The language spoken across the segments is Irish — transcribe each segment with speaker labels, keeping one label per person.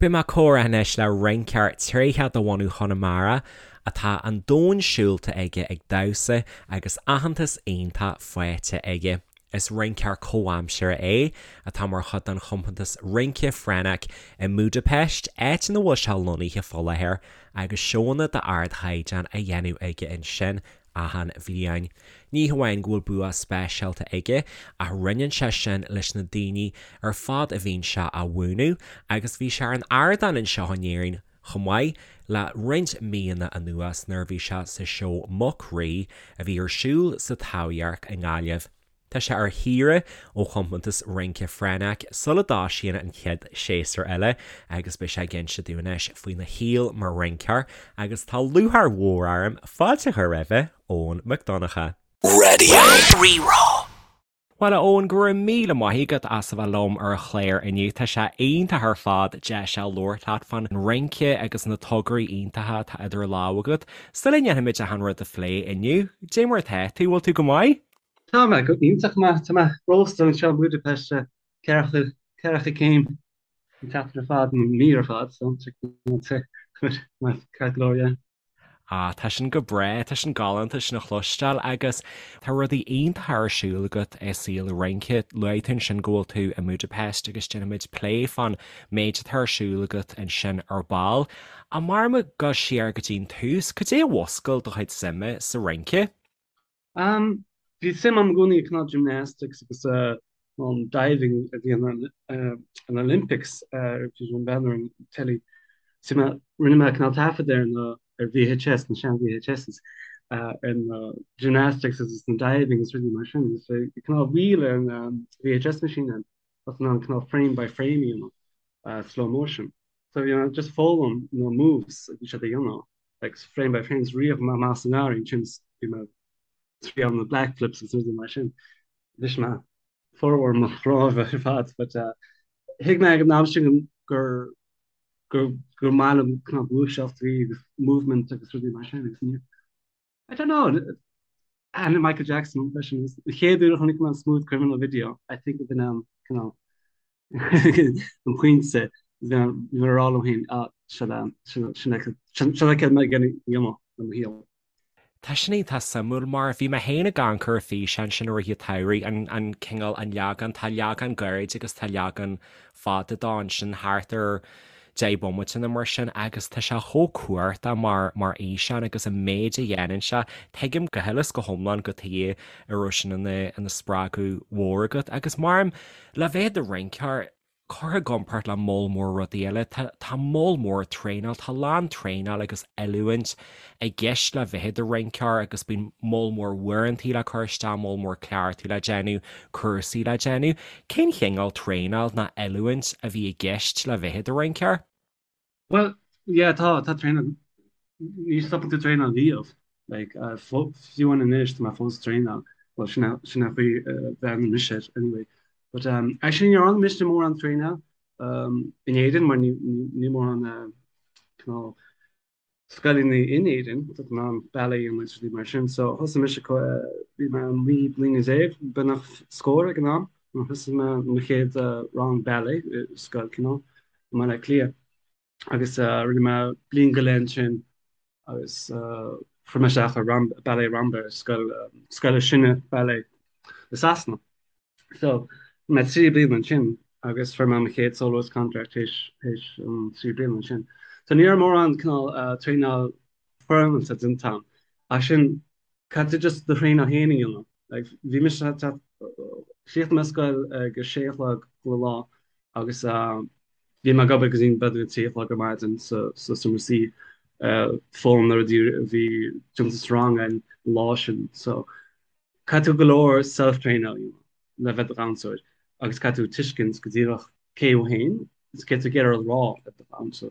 Speaker 1: Beidh mé ag comhrá anois le rinceoir tréitheach de bhunadh Chonamara atá an domhan siúlta aige ag damhsa agus aitheantas iontach faighte aige. Is rinceoir comhaimseartha é atá mar chuid den chompántas rince Frenák i mBúdaipeist, áit ina bhfuil sé lonnaithe fá láthair agus seónna d'ardchaighdeán á dhéanamh aige ansin achan bhliain. Ní hamháin go bhfuil bua speisialta aige, ach roinneann sé sin leis na daoine ar fad a bhíonn sé á mhúineadh, agus bhí sé ar an ardán anseo in Éirinn chomh maith le roinnt míonna anuas nuair a bhí sé sa seó Muc Rí a bhí ar siúl sa Taibhdhearc i nGaillimh. Tá sé ar shaoire ó chompántas rince Frenák sula dtosaíonn an chéad séasúr eile agus beidh sé ag inse dúinn anois faoina shaol mar rinceoir agus tá lúcháir mhór orm fáilte a chur roimhe, Eoghan Mac Donncha.
Speaker 2: Radio Rí-Rá.
Speaker 1: Bhuel a Eoghain, go raibh míle maith agat as a bheith liom ar an chlár inniu. Tá sé iontach ar fad deis a labhairt leat fán rince agus na tograí iontacha atá idir lámha agat. Sula ndéanfaimid achan rud a phlé inniu, dé mar atá tú, bhfuil tú go maith?
Speaker 3: Tá mé go iontach maith. Tá mé rósta anseo i mBudapest, 40 céim an tseachtain ar fad, an mí ar fad, so tá mé ceart go leor, yeah.
Speaker 1: Ah, tá sin go breá, tá sin galánta sin a chloisteáil agus tá rudaí iontacha ar siúl agat i saol an rince. Luaigh tú ansin go bhfuil tú i mBudapest agus déanfaimid plé fán méid atá ar siúl agat ansin ar ball. Ach mar muid ag dul siar go dtí an tús, cad é a mhúscail do chuid suime sa rince?
Speaker 3: Um, bhí suim agam i gcónaí i cineál gymnastics agus an diving a bhí an an Olympics bhí an bhean ar an telly. So mé rinne mé cineál taifead ar na ar VHS na sean VHSs ar na gymnastics agus na diving agus rudaí mar sin. So bhí cineál wheel ar an VHS machine ann agus an cineál frame by frame you know, uh, slow motion. So you know, just foghlaim na moves a bhí siad a dhéanamh. like frame by frame is rith mé amach sa ngarraí ansin bhí mé triail na back flips agus rudaí mar sin. Bhris mé formhór mo chnámha ar fad but uh, thuig mé ag an am sin gur gur gur maith liom cineál gluaiseachtaí agus movement agus rudaí mar sin agus ní I don't know and Michael Jackson freisin an chéad uair a chonaic mé an Smooth Criminal video I think bhí an cineál an pointe bhí mé ag rá liom féin ah seo sin sin céard mé ag déanamh le mo shaol.
Speaker 1: Tá sin iontach suimiúil mar bhí mé féin ag amharc ar an físeán sin i rith an tsamhraidh, an an cineál an leagan, tá leagan gairid agus tá leagan fada dó ansin thart ar 10 bomaite nó mar sin agus tá sé chomh cumhachtach mar mar fhíseán agus an méid a dhéanann sé. Tuigim go huile is go hiomlán cad chuige a raibh sin ina ina spreagadh mhór agat agus mar Le bheith i do rinceoir, curtha i gcomparáid le moll mór rudaí eile, tá tá moll mór traenáil, tá a lán traenáil agus oiliúint i gceist le bheith i do rinceoir agus bíonn moll mór uaireantaí le cur isteach, moll mór cleachtaidh le déanamh, cúrsaí le déanamh. Cén chineál traenáil ná oiliúint a bhí i gceist le bheith i do rinceoir?
Speaker 3: Bhuel, yeah, tá, tá traenáil, ní stopann tú traenáil riamh. Like, uh, fiú amháin anois, tá mé fós ag traenáil. Well, sin é, sin é an chaoi a bhreathnaíonn mise air, anyway. But, um, actually, ní dhearna mise mórán traenáil, um, in Éirinn, mar ní, ní, ní mórán, uh, cineál scoileanna in Éirinn, tá in ann ballet agus rudaí mar sin. So, thosaigh mise, bhí mé 19 bliana, beagnach scór ag an am, nuair a thosaigh mé mo chéad uh, rang ballet i scoil cineál. i mBaile Átha Cliath agus rinne mé bliain go leith ansin agus fuair mé isteach ar Ballet Rambert, scoil scoil is sine ballet i Sasana. So bhí mé 3 bliana ansin agus fuair mé mo chéad soloist contract théis théis an 3 bliana ansin. So ní raibh mórán cineál traenáil foirmeálta déanta agam ach sin caithfidh tú just do thraenáil féin a dhéanamh. Like, bhí mise chríochnaigh mé scoil ag a sé a chlog chuile lá agus bhí mé ag obair go dtí b'fhéidir a 3 a chlog ar maidin sa sa seomra suí foghlaim na rudaí a bhí déanta sa rang an lá sin. So caithfidh tú go leor self-train a dhéanamh le bheith i do dhamhsóir agus caithfidh tú tuiscint go díreach cé thú féin is céard tá tú ag iarraidh a rá le do dhamhsa.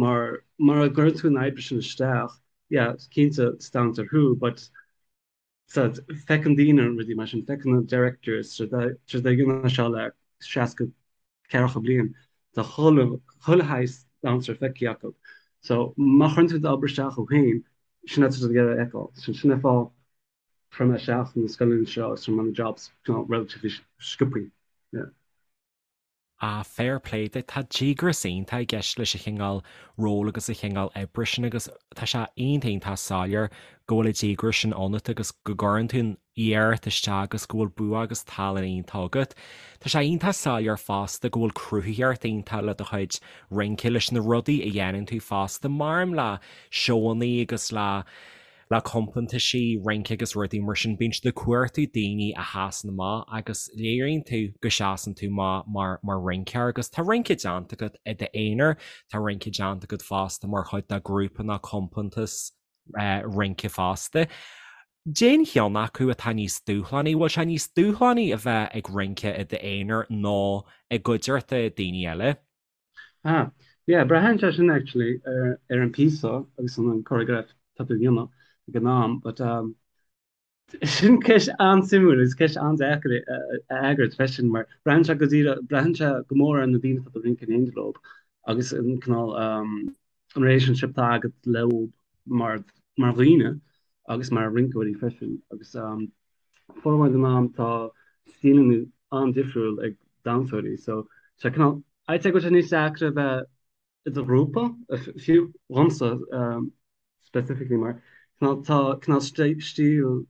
Speaker 3: Mar mura gcuireann tú an oibre sin isteach, yeah, cinnte is damhsóir thú but so feiceann daoine rudaí mar sin, feiceann na directors, siad ag déanamh seo le 60 ceathracha bliain, tá chuile chuile shaghas damhsóir feicthe acu. So má chuireann tú d'obair isteach thú féin, sin atá siad ag iarraidh a fheiceáil. Sin sin an fáth fuair mé isteach na scoileanna seo agus fuair mé na jobs you know, relatively sciobthaí. Yeah.
Speaker 1: Ah, fair play duit. Tá díograis iontach i gceist leis an chineál ról agus an chineál oibre sin agus tá sé iontach iontach soiléir go bhfuil an díograis sin ionat agus go gcuireann tú an iarracht isteach agus go bhfuil bua agus tallann iontach agat. Tá sé iontach soiléir fosta go bhfuil cruthaitheacht iontach le do chuid rince, leis na rudaí a dhéanann tú fosta, maram le seóanna agus le le compántaisí rince agus rudaí mar sin, bíonn siad ag cuartú daoine a sheasann amach agus léiríonn tú go seasann tú amach mar mar rinceoir agus tá rince déanta agat i d'aonar, tá rince déanta agat fosta mar chuid de ghrúpa nó compántas rince fosta. Cén cheann acu atá níos dúshlánaí? Bhfuil sé níos dúshlánaí a bheith ag rince i d'aonar nó i gcuideachta daoine eile?
Speaker 3: Ah, yeah, braitheann sé sin actually ar, ar an píosa agus an choreograph tá tú a dhéanamh ag an am, but um, sin ceist an-suimiúil agus ceist an-deacair a fhreagairt freisin mar braitheann sé go díreach, braitheann sé go mór ar na daoine atá tú ag rince in éindí leo agus an cineál um, an relationship atá agat leo mar, mar dhaoine agus mar rinceoirí freisin agus um, formhór den am tá stíleanna an-difriúil ag damhsóirí so sé cineál I'd say go bhfuil sé níos deacra a bheith i do ghrúpa, fiú dhomsa specifically mar cineál tá cineál stíl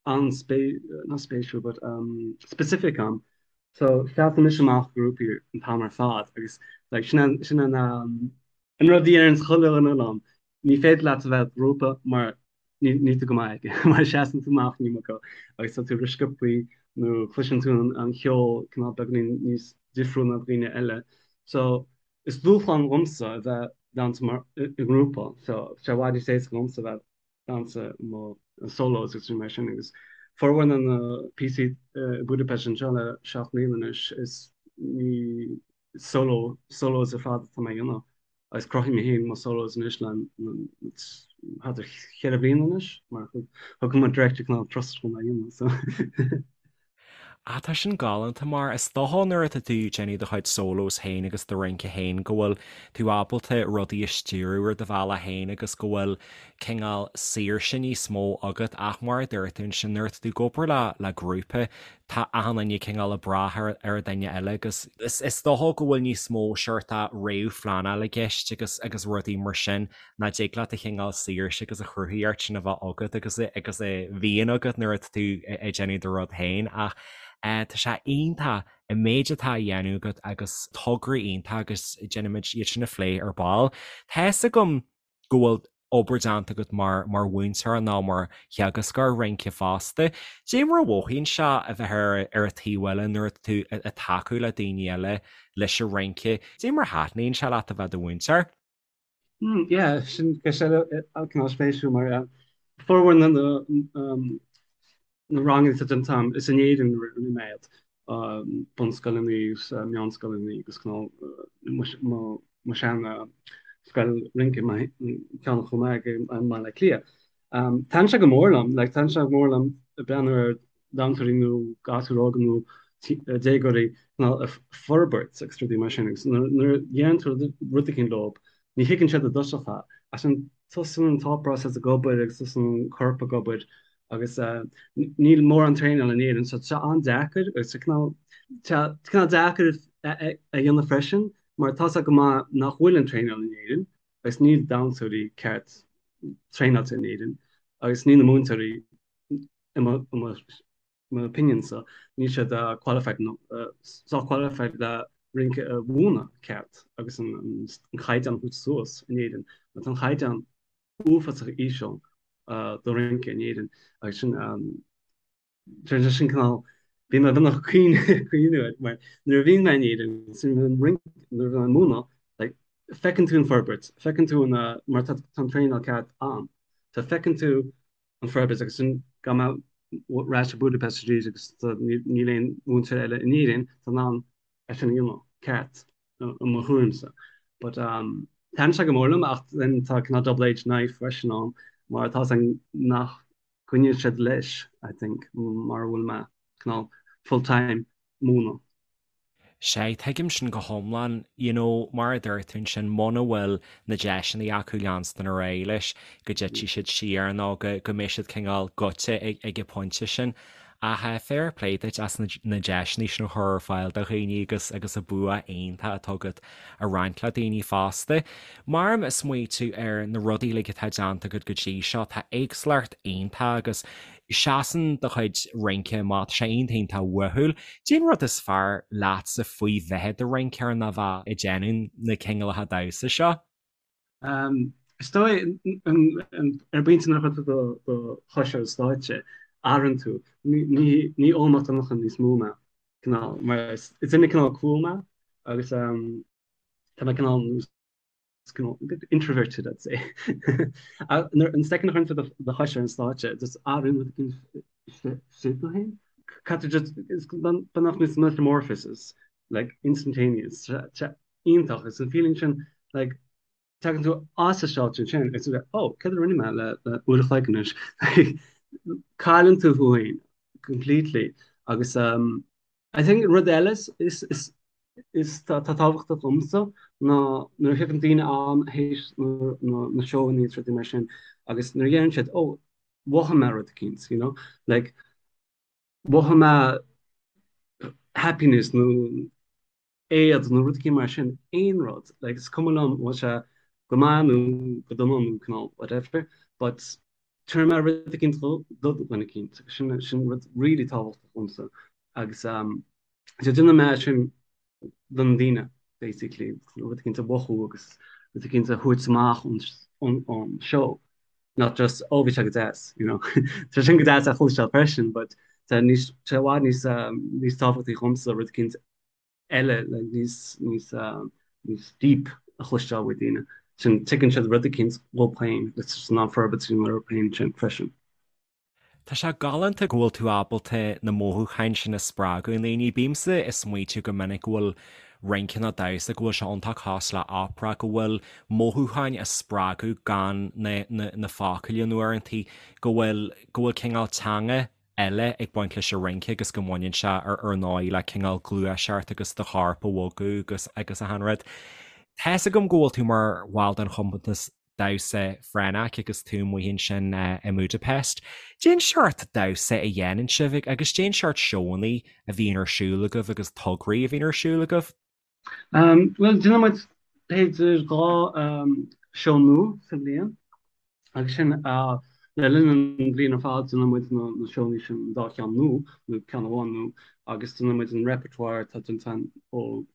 Speaker 3: an-spé not spéisiúil but specific agam so seasann mise amach i ngrúpaí an t-am ar fad agus like sin an sin an an rud a deireann chuile dhuine liom Ní féidir leat a bheith i ngrúpa mar níl tú go maith aige, mar seasann tú amach an iomarca agus tá tú rósciobtha nó cloiseann tú an ceol cineál beagáinín níos difriúil ná daoine eile. So is dúshlán dhomsa a bheith damhsa mar i ngrúpa. So tá sé i bhfad níos éasca dhomsa a bheith damhsa mo solos agus rudaí mar sin agus formhór na na píosaí i Budapest anseo le 7 mbliana anois is ní solo solos ar fad atá mé a dhéanamh. Agus cruthaím mé féin mo solos anois le thart ar cheithre bliana anois mar thug mo director cineál trust dom é a dhéanamh so.
Speaker 1: Ah tá sin galánta mar is dócha nuair atá tú ag déanamh do chuid solos féin agus do rince féin go bhfuil tú ábalta rudaí a stiúradh ar do bhealach féin agus go bhfuil cineál saoirse níos mó agat ach mar a dúirt tú ansin nuair atá tú ag obair le le grúpa tá achan duine cineál ag brath ar an duine eile agus is dócha go bhfuil níos mó seort réamhphleanáil i gceist agus agus rudaí mar sin nach dtig leat an cineál saoirse agus an chruthaíocht sin a bheith agat agus agus a bhíonn agat nuair atá tú ag déanamh do rud féin ach tá sé iontach an méid atá á dhéanamh agat agus tograí iontach agus déanfaimid iad sin a phlé ar ball. Tá fhios agam go bhfuil obair déanta agat mar mar mhúinteoir nó mar theagascóir rince fosta. Dé mar a mhothaíonn sé a bheith ar ar an taobh eile nuair atá tú ag tacú le daoine eile leis an rince. Dé mar a thaitníonn sé leat a bheith i do mhúinteoir?
Speaker 3: Mm, yeah, sin ceist eile cineál spéisiúil mar formhór na na ranganna atá déanta agam is in Éirinn a rinne mé iad, bunscoileanna agus meánscoileanna agus cineál mo shean scoil rince, ceann chomh maith i mBaile Átha Cliath. Taitníonn sé go mór liom, like taitníonn sé go mór liom breathnú ar dhamhsóirí nó gasúir óga nó déagóirí cineál ag forbairt agus rudaí mar sin agus nuair a dhéanann tú rud éicint leo ní thuigeann siad i dtosach é ach ansin tosaíonn an thought process ag obair agus tosaíonn an corp ag obair agus níl mórán traenáil in Éirinn so tá sé an-deacair agus tá cineál tá cineál deacair a dhéanamh freisin mar tá sé go maith nach bhfuil an traenáil in Éirinn agus níl damhsóirí ceart traenáilte in Éirinn agus níl na múinteoirí i mo mo opinion-sa níl siad qualified nó sách qualified le rince a mhúineadh ceart agus an caighdeán a thabhairt suas in Éirinn mar tá an caighdeán uafásach íseal do rince in Éirinn agus sin sin sin cineál bhí mé beagnach ag caoineadh air mar nuair a bhíonn mé in Éirinn sin an rince nuair a bhíonn mé ag múineadh like feiceann tú an forbairt feiceann tú an mar tá an traenáil ceart ann so feiceann tú an forbairt agus sin gabh mé ar ais go Budapest arís agus níl aon mhúinteoir eile in Éirinn atá in ann é sin a dhéanamh ceart. i mo thuairimse. But um, taitníonn sé go mór liom ach then tá cineál double-edged knife freisin ann mar tá san nach gcoinníonn siad leis, I think, mar a bhfuil mé cineál full-time múineadh.
Speaker 1: Sea, tuigim sin go hiomlán. You know, mar a dúirt tú ansin, muna bhfuil na deiseanna acu leanstan ar aghaidh leis, go dtitfidh siad siar nó go, go mbeidh siad cineál goite ag, ag an bpointe sin. Ach fair play duit as na deiseanna sin a chur ar fáil do dhaoine agus agus an bua iontach atá agat a roinnt le daoine fosta. Mar ag smaoitiú ar na rudaí uilig atá déanta agat go dtí seo, tá éagsúlacht iontach agus seasann do chuid rince amach, tá sé iontach iontach uathúil. Cén rud is fearr leatsa faoi bheith i do rinceoir nó bheith ag déanamh na cineálacha damhsa seo?
Speaker 3: Is dóigh, ar an bpointe nuair a chuireann tú do chois ar an stáitse, athraíonn tú. Ní Eoin Mac Donncha níos mó mé, cineál, mar is duine cineál cool mé agus tá mé cineál cineál a bit introverted, I'd say. An second a chuireann tú do chois ar an stáitse, just athraíonn rud éicint istigh tú féin. Caithfidh just, is beagnach níos metamorphosis, like instantaneous. iontach. Is an feeling sin like tagann tú as an stáitse ansin agus tú like oh céard a rinne mé le le uair a chloig anois like cailleann tú thú féin completely agus um I think rud eile is is is is tá tá tábhachtach domsa ná nuair a thiocfainn daoine ann théis na na na seóanna is rudaí mar sin agus nuair a dheireann siad oh mhothaigh mé rud eicínt you know like mhothaigh mé happiness nó éad nó rud éicint mar sin, aon rud, like is cuma liom an bhfuil sé go maith nó go dona nó cineál whatever, but tabharfaidh mé rud éicint do dhuine éicint agus sin sin rud really tábhachtach domsa agus um so déanann mé sin don daoine basically rud éicint a mhothú agus rud éicint a thabhairt amach ón ón ón seó not just oh bhí sé go deas you know tá sin go deas a chloisteáil freisin but tá níos tá i bhfad níos um níos tábhachtaí dhomsa rud éicint eile le níos níos níos deep a chloisteáil ó daoine. Sin tuigeann siad rud eicínt dhóibh féin agus tá siad in ann forbairt orthu féin sin freisin.
Speaker 1: Tá sé galánta go bhfuil tú ábalta na mothúcháin sin a spreagadh i ndaoine. Bímse ag smaoitiú go minic go bhfuil rince nó damhsa, go bhfuil sé iontach cosúil le opera, go bhfuil mothúcháin á spreagadh gan na na na focail in uaireantaí, go bhfuil go bhfuil cineál teanga eile ag baint leis an rince agus go mbaineann sé ar ar ndóigh le cineál gluaiseacht agus do chorp a bhogadh agus agus achan rud. Tá's agam go bhfuil tú mar bhall den chompántas damhsa Frenach agus tú amuigh ansin i mBudapest. Cén seort damhsa a dhéanann sibh agus cén seort seónna a bhíonn ar siúl agaibh agus tograí a bhíonn ar siúl agaibh?
Speaker 3: Bhuel, déanann muid b'fhéidir 2 seó nua sa bhliain agus sin le linn an bhliain ar fad déanann muid na seónna sin, an dá cheann nua nó ceann amháin nua agus déanann muid an repertoire atá déanta ó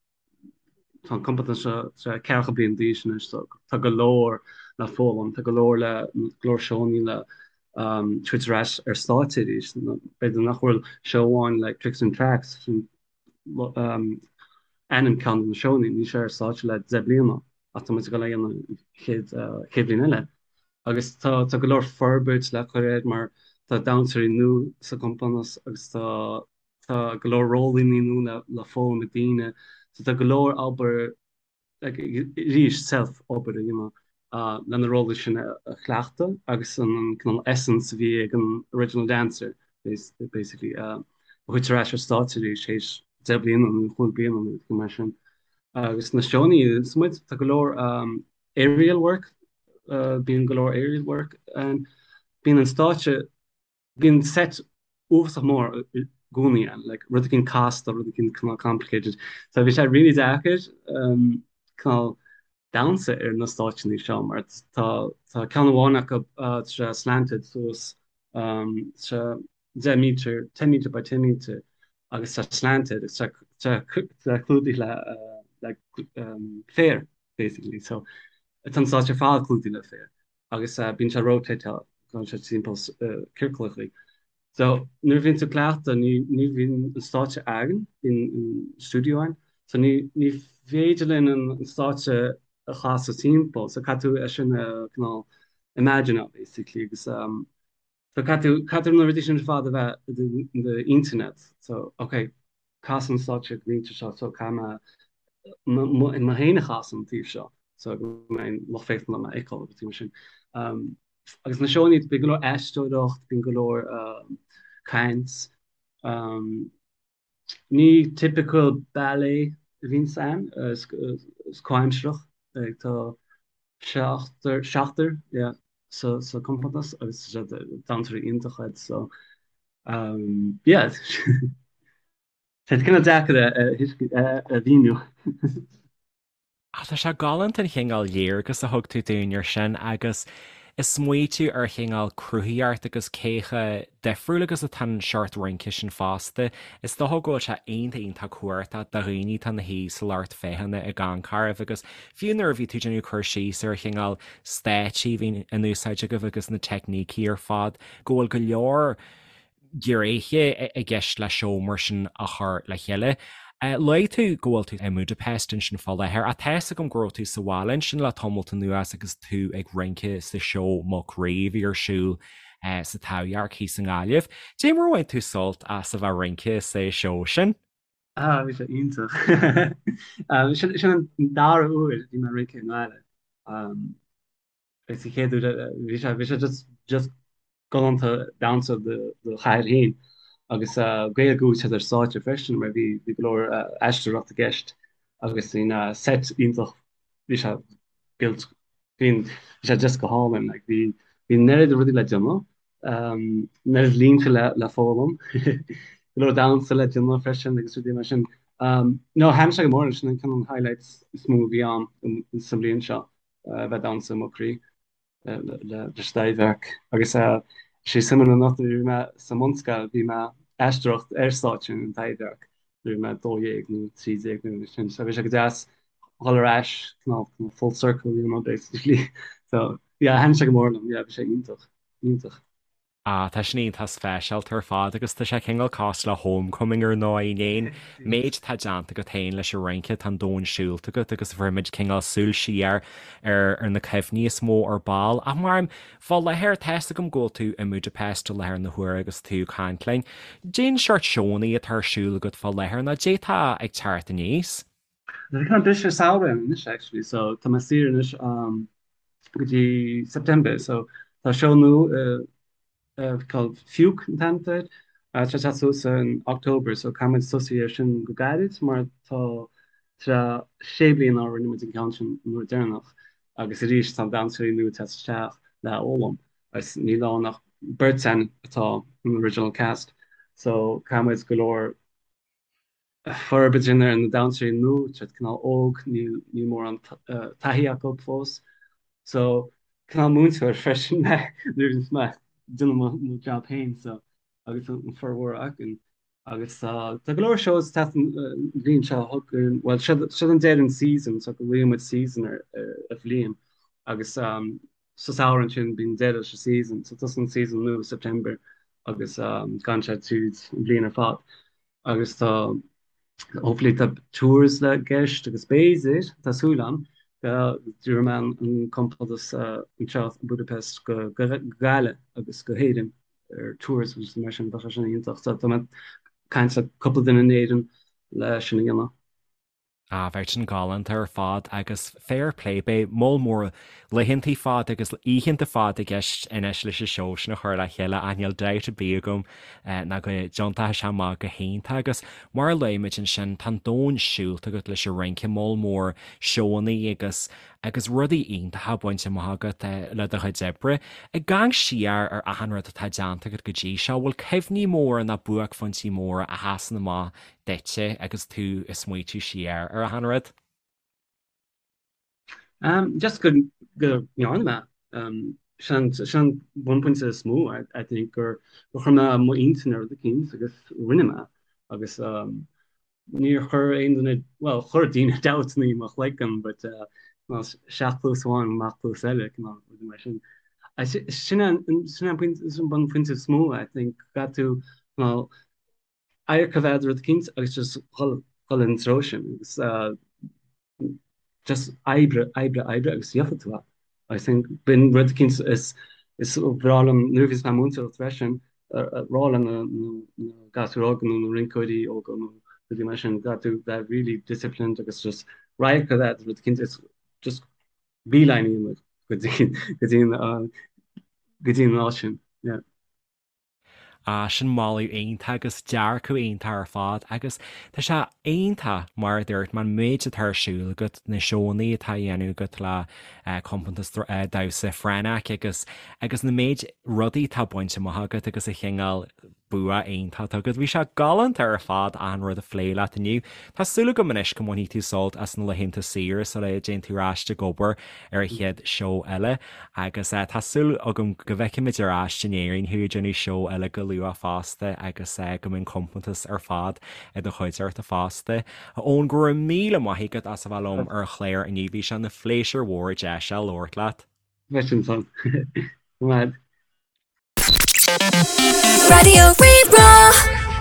Speaker 3: tá an compántas seo ceathracha bliain d'aois anois so tá go leor le foghlaim, tá go leor le go leor seónna le tabhairt ar ais ar stáitse arís. B'fhéidir nach bhfuil seó amháin like Tricks and Tracks sin ainm ceann de na seónna, níl sé ar stáitse le 10 bliana ach tá muid ag dul é a dhéanamh an chéad chéad bhliain eile. Agus tá tá go leor forbairt le cur air mar tá damhsóirí nua sa gcompántas agus tá tá go leor rólanna nua le le foghlaim ag daoine. So tá go leor obair like arís self obair a dhéanamh le na rólaí sin a chleachtadh agus an cineál essence a bhí ag an original dancer basically a thabhairt ar ais ar stáitse arís théis 10 bliana nó 5 bliana nó rud mar sin. Agus na seónna is muid tá go leor aerial work bíonn go leor aerial work ann bíonn an stáitse Bíonn set uafásach mór i gcónaí ann, like rud éicint casta, rud éicint cineál complicated. So bhí sé really deacair um, cineál damhsa ar na stáitseanna seo mar tá tá ceann amháin acu uh, tá sé slanted suas um, tá sé 10 meter, 10 meter by 10 meter agus tá slanted agus tá tá tá clúdaithe le uh, le um, féar basically. So tá an stáitse ar fad clúdaithe le féar. agus bíonn sé rotateáil, gabhann sé timpeall ciorclachaí. So nuair a bhíonn tú ag cleachtadh ní ní bhíonn an stáitse againn, bíonn an stiúideo againn, so ní ní féidir linn an stáitse a chasadh timpeall, so caithfidh tú é sin a cineál imagine basically agus um, so caithfidh tú caithfidh na rudaí sin ar fad a bheith i d'intinn agat, so ok cas an stáitse go mbíonn seo so caithfidh mé mé féin a chasadh an taobh seo so go mbeidh an lucht féachana in ann mé a fheiceáil agus rudaí mar sin. Agus na seónna, bíonn go leor aisteoireacht, bíonn go leor caint. Ní typical ballet a bhíonn ann, is comhaimsearach. Tá seachtar, seachtar, yeah, sa sa compántas agus damhsóirí iontacha iad so. Um, yeah. Tá sé cineál deacair a mhíniú.
Speaker 1: Ach tá sé galánta an chineál léargas a thug tú dúinn ar sin agus ag smaoitiú ar chineál cruthaíocht agus cé chomh difriúil agus atá an seort rince sin fosta. Is dócha go bhfuil sé iontach iontach cumhachtach do dhaoine atá ina shuí sa lucht féachana ag amharc oraibh agus fiú nuair a bhí tú ag déanamh cur síos ar chineál stáitsí a bhíonn in úsáid agaibh agus na teicnící ar fad, go bhfuil go leor gnéithe i gceist le seó mar sin a chur le chéile. Luaigh tú go bhfuil tú i mBudapest ansin fá láthair, ach tá fhios agam go raibh tú sa bhaile ansin le tamalt anuas agus tú ag rince sa seó Muc Rí a bhí ar siúl sa Taibhdhearc thíos i nGaillimh. Dé mar a bhain tú sult as a bheith ag rince sa seó sin?
Speaker 3: Ah, bhí sé iontach. Sin an dara huair a bhí mé ag rince i nGaillimh. Agus an chéad uair bhí sé bhí sé just just galánta damhsa do do chathair féin agus Gaeilge a úsáid ar stáitse freisin mar bhí bhí go leor aisteoireacht i gceist agus bhí na set iontach bhí sé built bhí bhí sé just go hálainn like bhí bhí an oiread rudaí le déanamh an oiread línte le le foghlaim go leor damhsa le déanamh freisin agus rudaí mar sin. No thaitin sé go mór sin an ceann highlights is mó a bhí ann sa mbliain seo. a bheith ag damhsa i Muc Rí leis an Taibhdhearc. Agus sé suimiúil enough nuair a bhí mé sa mbunscoil bhí mé ag aisteoireacht ar stáitse an Taibhdhearc nuair a bhí mé 12 nó 13 nó mar sin. So bhí sé go deas dhul ar ais cineál full circle you know basically. So yeah thaitin sé go mór liom yeah bhí sé iontach iontach.
Speaker 1: Ah, tá sin iontach speisialta ar fad agus tá sé cineál cosúil le homecoming ar ndóigh, in aon méid atá déanta agat féin leis an rince, tá an domhan siúlta agat agus bhfuair muid cineál súil siar ar ar na cuimhní is mó ar ball. Ach mar fá láthair, tá fhios agam go bhfuil tú i mBudapest i láthair na huaire agus tú ag caint linn. Cén seort seónna atá ar siúl agat fá láthair nó dé tá ag teacht aníos?
Speaker 3: Tá cineál briseadh samhraidh ann anois actually so tá mé saor anois um, go dtí September so tá seó nua called Fiúch an t-ainm air tá sé ag teacht suas in October so caithfidh muid tosú ar sin go gairid mar tá sé bliana ó rinne muid an ceann sin an uair deireanach agus arís tá damhsóirí nua ag teacht isteach le foghlaim agus níl ann ach beirt againn atá an original cast so caithfidh muid go leor forbairt a dhéanamh ar na damhsóirí nua, tá siad cineál óg, níl níl mórán taithí acu fós. So, cineál múinteoir freisin mé nuair a bhíonns mé ag déanamh mo mo job féin so agus an formhór againn. Agus tá tá go leor shows ag teacht an bhliain seo chugainn, bhuel seo seo an deireadh an season so glaonn muid season ar ar bhliain agus um, sa samhradh ansin bíonn deireadh leis an season so tosaíonn season nua September agus um, gabhann sé tríd an bhliain ar fad. Agus tá, hopefully tá tours i gceist agus b'fhéidir, tá súil agam, go dtabharfaidh mé an compántas anseo i Budapest go Gaillimh agus go hÉirinn ar tours agus mar sin, bheadh sé sin iontach. So tá mé ag caint le cúpla duine in Éirinn le sin a dhéanamh.
Speaker 1: Ah, bheadh sin galánta ar fad agus fair play, beidh moll mór laethanta fada agus oícheanta fada i gceist anois leis an seó sin a chur le chéile ach níl dabht ar bith agam ná go dtiontóidh sé amach go hiontach agus mar a luaigh muid ansin tá an domhan siúlta agat leis an rince, moll mór seónna agus agus rudaí iontacha bainte amach agat le do chuid oibre. Ag amharc siar ar achan rud atá déanta agat go dtí seo, bhfuil cuimhní móra nó buaicphointí móra a sheasann amach duitse agus tú ag smaoitiú siar ar achan rud?
Speaker 3: Um, just go go ndearna mé. Um, sin sin an bunphointe is mó, I, I think, gur gur chuir mé mo intinn ar rud eicínt agus rinne mé. Agus um, níor chuir aon duine, well, chuir daoine dabht i mo chloigeann, but uh, well, isteach cluas amháin amach cluas eile, cineál rudaí mar sin. I, sin an sin an pointe sin an bunphointe is mó, I think, caithfidh tú cineál adharc a bheith a'd ar rud eicínt agus just dhul dhul in treo sin agus just oibre, oibre, oibre agus gheofaidh tú é. I think b'in rud eicínt is is breá liom nuair a bhíos mé ag múinteoireacht freisin rá le na na gasúir óga nó na rinceoirí óga nó rudaí mar sin caithfidh tú bheith really disciplined agus just radharc a bheith a'd ar rud eicínt is just beeline a dhéanamh go dtí go dtí an go dtí an áit sin. Yeah.
Speaker 1: Ah, sin moladh iontach agus dearcadh iontach ar fad agus tá sé iontach, mar a dúirt mé, an méid atá ar siúl agat, na seónna atá á dhéanamh agat le compántas damhsa Frenach agus agus na méid rudaí atá bainte amach agat agus a chineál. Bua iontach agat. Bhí sé galánta ar fad achan rud a phlé leat inniu. Tá súil agam anois go mbainfidh tú sult as na laethanta saoire sula dtéann tú ar ais ag obair ar an chéad seó eile agus tá súil agam go bhfeicfimid ar ais in Éirinn thú ag déanamh seó eile go luath fosta agus go mbeidh an compántas ar fad i do chuideachta fosta. A Eoin, go raibh míle maith agat as a bheith liom ar an chlár inniu. Bhí sé ina phléisiúr mhór deis a labhairt leat.
Speaker 3: Leis an san. Go maith.
Speaker 2: Raidió Rí-Rá.